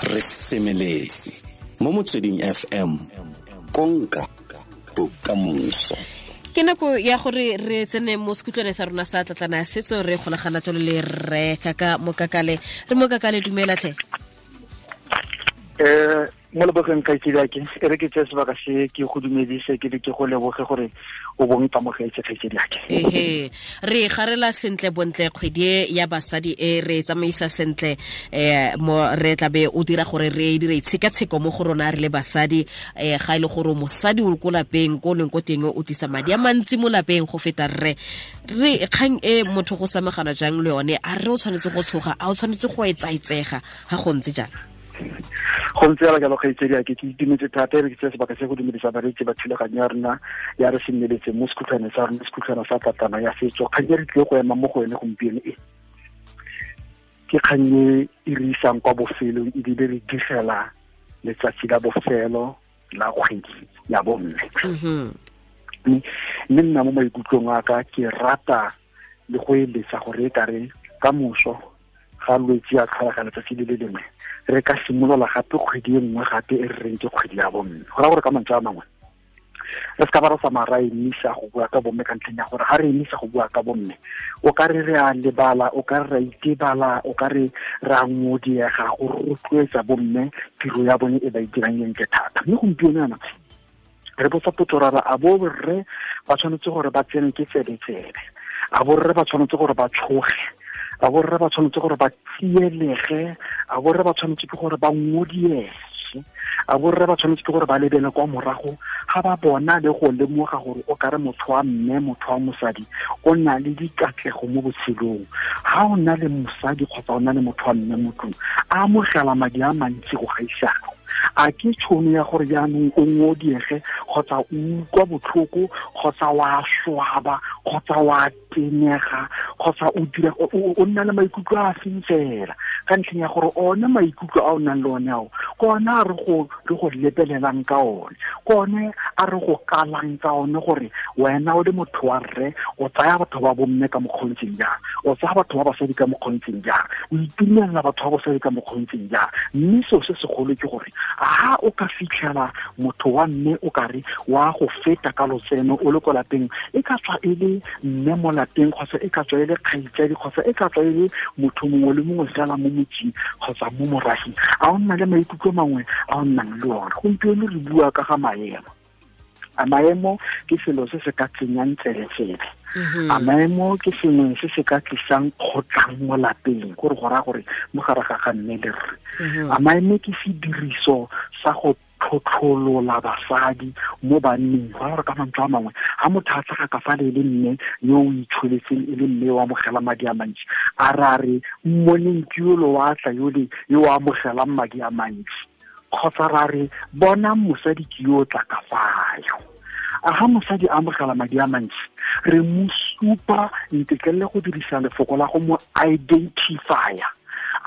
Re semeletse mo Motsweding FM, konka bokamoso. Ke nako ya gore re tsene mo sekhutlwane sa rona sa tlatlana ya setso, re golagana jalo le rre Kaka Mokakale. Re Mokakale, dumela tlhe. Mo lebogeng kgaitsedi, e re ke tseye sebaka se ke go dumedise, ke be ke go leboge gore o bong kamogetse, kgaitsedi ake. Ehe, re garela sentle bontle kgwedi e ya basadi e re tsamaisa sentle, mo re tlabe o dira gore re dire itshekatsheko mo go rona re le basadi. Ga e le gore mosadi o ko lapeng ko leng ko teng o tlisa madi a mantsi mo lapeng go feta rre, re kgang e motho go samagana jang le yone? A re o tshwanetse go tshoga? A o tshwanetse go etsaetsega ga go ntse jang? Go ntse jalo jalo, kgaitsedi ake. Ke itumetse thata. E re ke tseye sebaka se go dumedisa bareetsi ba thulaganyo ya rona ya Re Semeletse mo sekhutlhwane sa rona, sekhutlhwana sa tlatlana ya setso. Kgang e re tlile go ema mo go yone gompieno e ke kgang e e re isang kwa bofelong, ebile re digela letsatsi la bofelo la kgwedi ya bomme. Mme nna mo maikutlong a ka ke rata le go eletsa gore e kare ka moso ga Lwetsi a tlhola letsatsi le le lengwe, re ka simolola gape kgwedi e nngwe gape e re reng ke kgwedi ya bomme. Go raya gore ka mantswe a mangwe re se ka ba re tsamaya ra emisa go bua ka bomme, ka ntlheng ya gore ga re emisa go bua ka bomme o ka re re a lebala, o ka re ra itebala, o ka re re a ngodiega go rotloetsa bomme tiro ya bone e ba e dirang e ntle thata. Mme gompieno yana re botsa potso ra re, a bo rre ba tshwanetse gore ba tsene ke tsebe-tsebe? A borre ba tshwanetse gore ba tshoge? A borre ba tshwanetse gore ba tsielege? A borre ba tshwanetse ke gore ba ngodiege? A borre ba tshwanetse ke gore ba lebele kwa morago ga ba bona le go lemoga gore o kare motho wa mme, motho wa mosadi o na le dikatlego mo botshelong? Ga o na le mosadi kgotsa o na le motho wa mme mo tlong a amogela madi a mantsi go gaisago, a ke tšhono ya gore jaanong o ngodiege kgotsa o utlwa botlhoko kgotsa wa swaba kgotsa wa tenega kgotsa o dira o nna le maikutlo a seng fela, ka ntlheng ya gore one maikutlo a o nang le one ao ke one a re go lebelelang ka one, ke one a re go kalang ka one, gore wena o le motho wa rre o tsaya batho ba bomme ka mokgontseng jang, o tsaya batho ba basadi ka mokgontseng jang, o itumelela batho ba basadi ka mokgontseng jang. Mme seo se segolo ke gore ga o ka fitlhela motho wa mme o kare wa go feta ka lotseno o le ko lapeng, e ka tswa e le mme mo lapeng kgotsa e ka tswa e le kgaitsadi kgotsa e ka tswa e le motho mongwe le mongwe fela mo motseng kgotsa mo morafeng, a o nna le maikutlo mangwe a o nnang le one? Gompieno re bua ka ga maemo. A maemo ke selo se se ka tsenyang tsebe-tsebe? A maemo ke sengwe se se ka tlisang kgotlang mo lapeng, gore go raya gore mo gare ga ga mme le rre? A maemo ke sediriso sa go tlhotlholola basadi mo banneng? Go raya gore ka mantswe a mangwe ga motho a tlhaga ka fa le le mme yo o itsholetseng, e le mme o amogela madi a mantsi, a ra re mmoneng ke yolo wa tla yole yo o amogelang madi a mantsi, kgotsa ra re bonang mosadi ke yo o tla ka fayo? A ga mosadi a amogela madi a mantsi re mo supa, ntetlelele go dirisa lefoko la go mo identifya,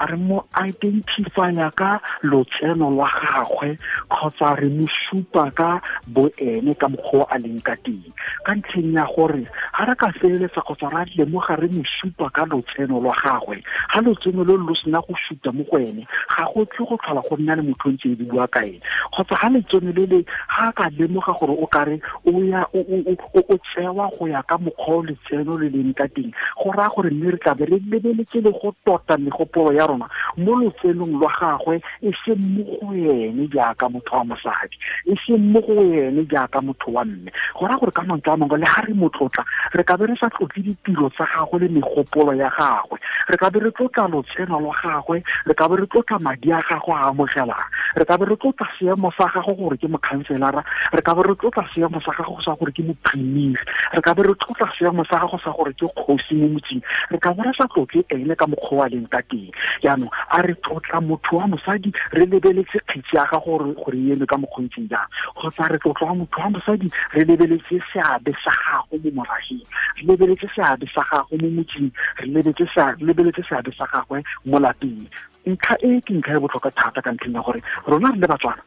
a re mo identifya ka lotseno lwa gagwe kgotsa re mo supa ka boene ka mokgwa a leng ka teng? Ka ntlheng ya gore ga re ka feleletsa kgotsa ra lemoga re mo supa ka lotseno lwa gagwe, ga lotseno lo lo sena go suta mo go ene, ga go tle go tlhola go nna le motho o ntse e bua ka ene. Kgotsa ga letseno le le ga ka lemoga gore o kare o ya o tsewa go ya ka mokgwa o letseno le leng ka teng, go raya gore mme re tlabe re lebeletse le go tota megopolo ya rona mo lotsenong lwa gagwe, e seng mo go ene jaaka motho wa mosadi, e seng mo go ene jaaka motho wa mme. Go raya gore ka mantswe a mangwe le ga re mo tlotla, re ka be re sa tlotle ditiro tsa gagwe le megopolo ya gagwe, re ka be re tlotla lotseno lwa gagwe, re ka be re tlotla madi a gagwe a amogelang, re ka be re tlotla seemo sa gagwe gore ke mokhanselara, re ka be re tlotla seemo sa gagwe sa gore ke moprimiri, re ka be re tlotla seemo sa gagwe sa gore ke kgosi mo motseng, re ka be re sa tlotle ene ka mokgwa wa leng ka teng. Jaanong a re tlotla motho wa mosadi re lebeletse kgetsi ya gagwe gore e eme ka mokgontseng jang, kgotsa re tlotla motho wa mosadi re lebeletse seabe sa gagwe mo morageng, re lebeletse seabe sa gagwe mo motseng, re lebeletse seabe sa gagwe mo lapeng? Ntlha e ke ntlha e botlhokwa thata, ka ntlheng ya gore rona re le Batswana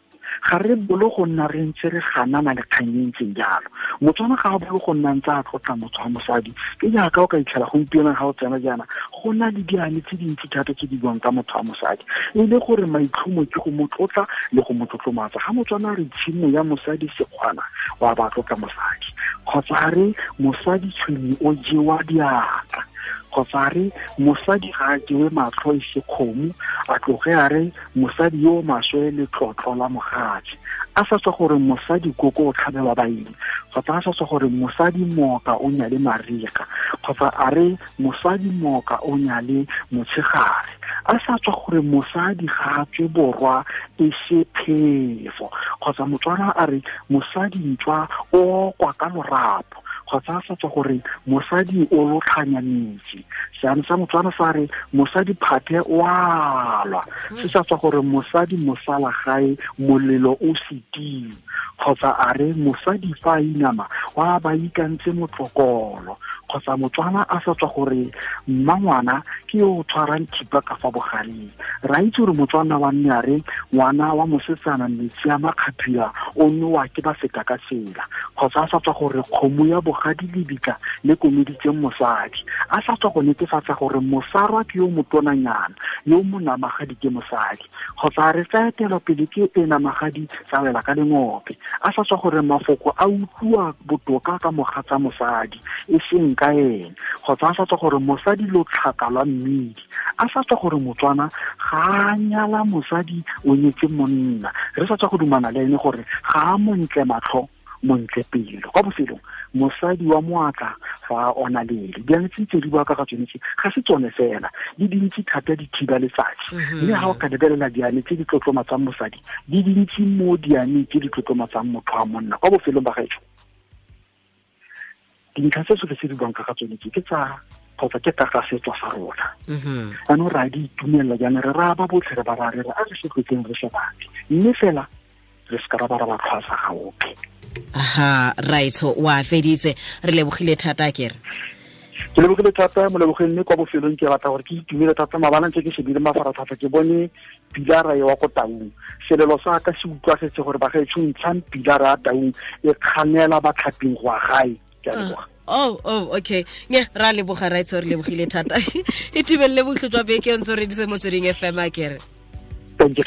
Ga re bolo go nna re ntse re ganana le kgang e ntseng jalo. Motswana ga a bolo go nna ntse a tlotla motho wa mosadi. Ke jaaka o ka itlhela gompieno ga o tsena jaana, go na le diane tse dintsi thata tse di buang ka motho wa mosadi, e le gore maitlhomo ke go mo tlotla le go mo tlotlomatsa. Ga motswana a re tshimo ya mosadi sekgwana, wa ba tlotla mosadi. Kgotsa a re mosadi tshwenye o jewa diatla, kgotsa a re mosadi ga a jewe matlho e se kgomo, a tloge a re mosadi yo o maswe letlotlo la mogatse, a sa tswa gore mosadi koko o tlhabelwa baeng, kgotsa a sa tswa gore mosadi mooka o nyale mariga, kgotsa a re mosadi mooka o nyale motshegare, a sa tswa gore mosadi ga a tswe borwa e se phefo, kgotsa motswana a re mosadi ntswa o kwa ka lorapo, kgotsa a sa tswa gore mosadi o lotlhanya metsi. Seane sa motswana sa re mosadi phathe o a lwa, se sa tswa gore mosadi mosala gae molelo o setiu, kgotsa a re mosadi fa a inama wa ba ikantse motlokolo, kgotsa motswana a sa tswa gore mmangwana ke yo o tshwarang thipa ka fa bogareng. Ra itse gore motswana wa nne a re ngwana wa mosetsana metsi a makgaphila o nowa ke ba feta ka tsela, kgotsa a sa tswa gore kgomo ya bogadi lebitla le komeditseng mosadi, a sa tswa go netefatsa gore mosarwa ke yo motonanyana yo monamagadi ke mosadi, kgotsa a re tsa etela pele ke e namagadi tsa wela ka lengope, a sa tswa gore mafoko a utlwa botoka ka mogatsa mosadi e seng ka ene, kgotsa a sa tswa gore mosadi lotlhaka lwa mmidi, a sa tswa gore motswana ga a nyala mosadi o nyetse monna. Re sa tswa go dumana le ene gore ga a montle matlho montle pelo. Kwa bofelong, mosadi wa moatla fa a ona lele. Diane tse di bua ka ga tsone tse ga se tsone fela, di dintsi thata di thiba letsatsi. Mme ga o ka lebelela diane tse di tlotlomatsang mosadi, di dintsi mo diane tse di tlotlomatsang motho wa monna. Kwa bofelong ba gaetsho, dintlha tse tsotlhe tse di buang ka ga tsone tse ke tsa kgotsa ke ka ga setso sa rona. Jaanong re a di itumelela jaana, re raya ba botlhe re ba raya re re a re se tlotleng re se batle, mme fela re se ka ra ba ra ba tlhwasa ga ope. Aha, raitsho wa feditse, re lebogile thata kere. Ke lebogile thata molebogeng, mme kwa bofelong ke batla gore ke itumele thata. Maabane ntse ke shebile mafaratlhatlha, ke bone pilara e wa ko Taung. Selelo sa ka se utlwagetse gore bagaetsho ntshang pilara ya Taung e kganela batlhaping go ya gae. Ke a leboga. Oh, okay. Nya, ra leboga raitsho, re lebogile thata. Itumelele botlhe jwa beke ntse re dise Motsweding FM a kere. Thank you.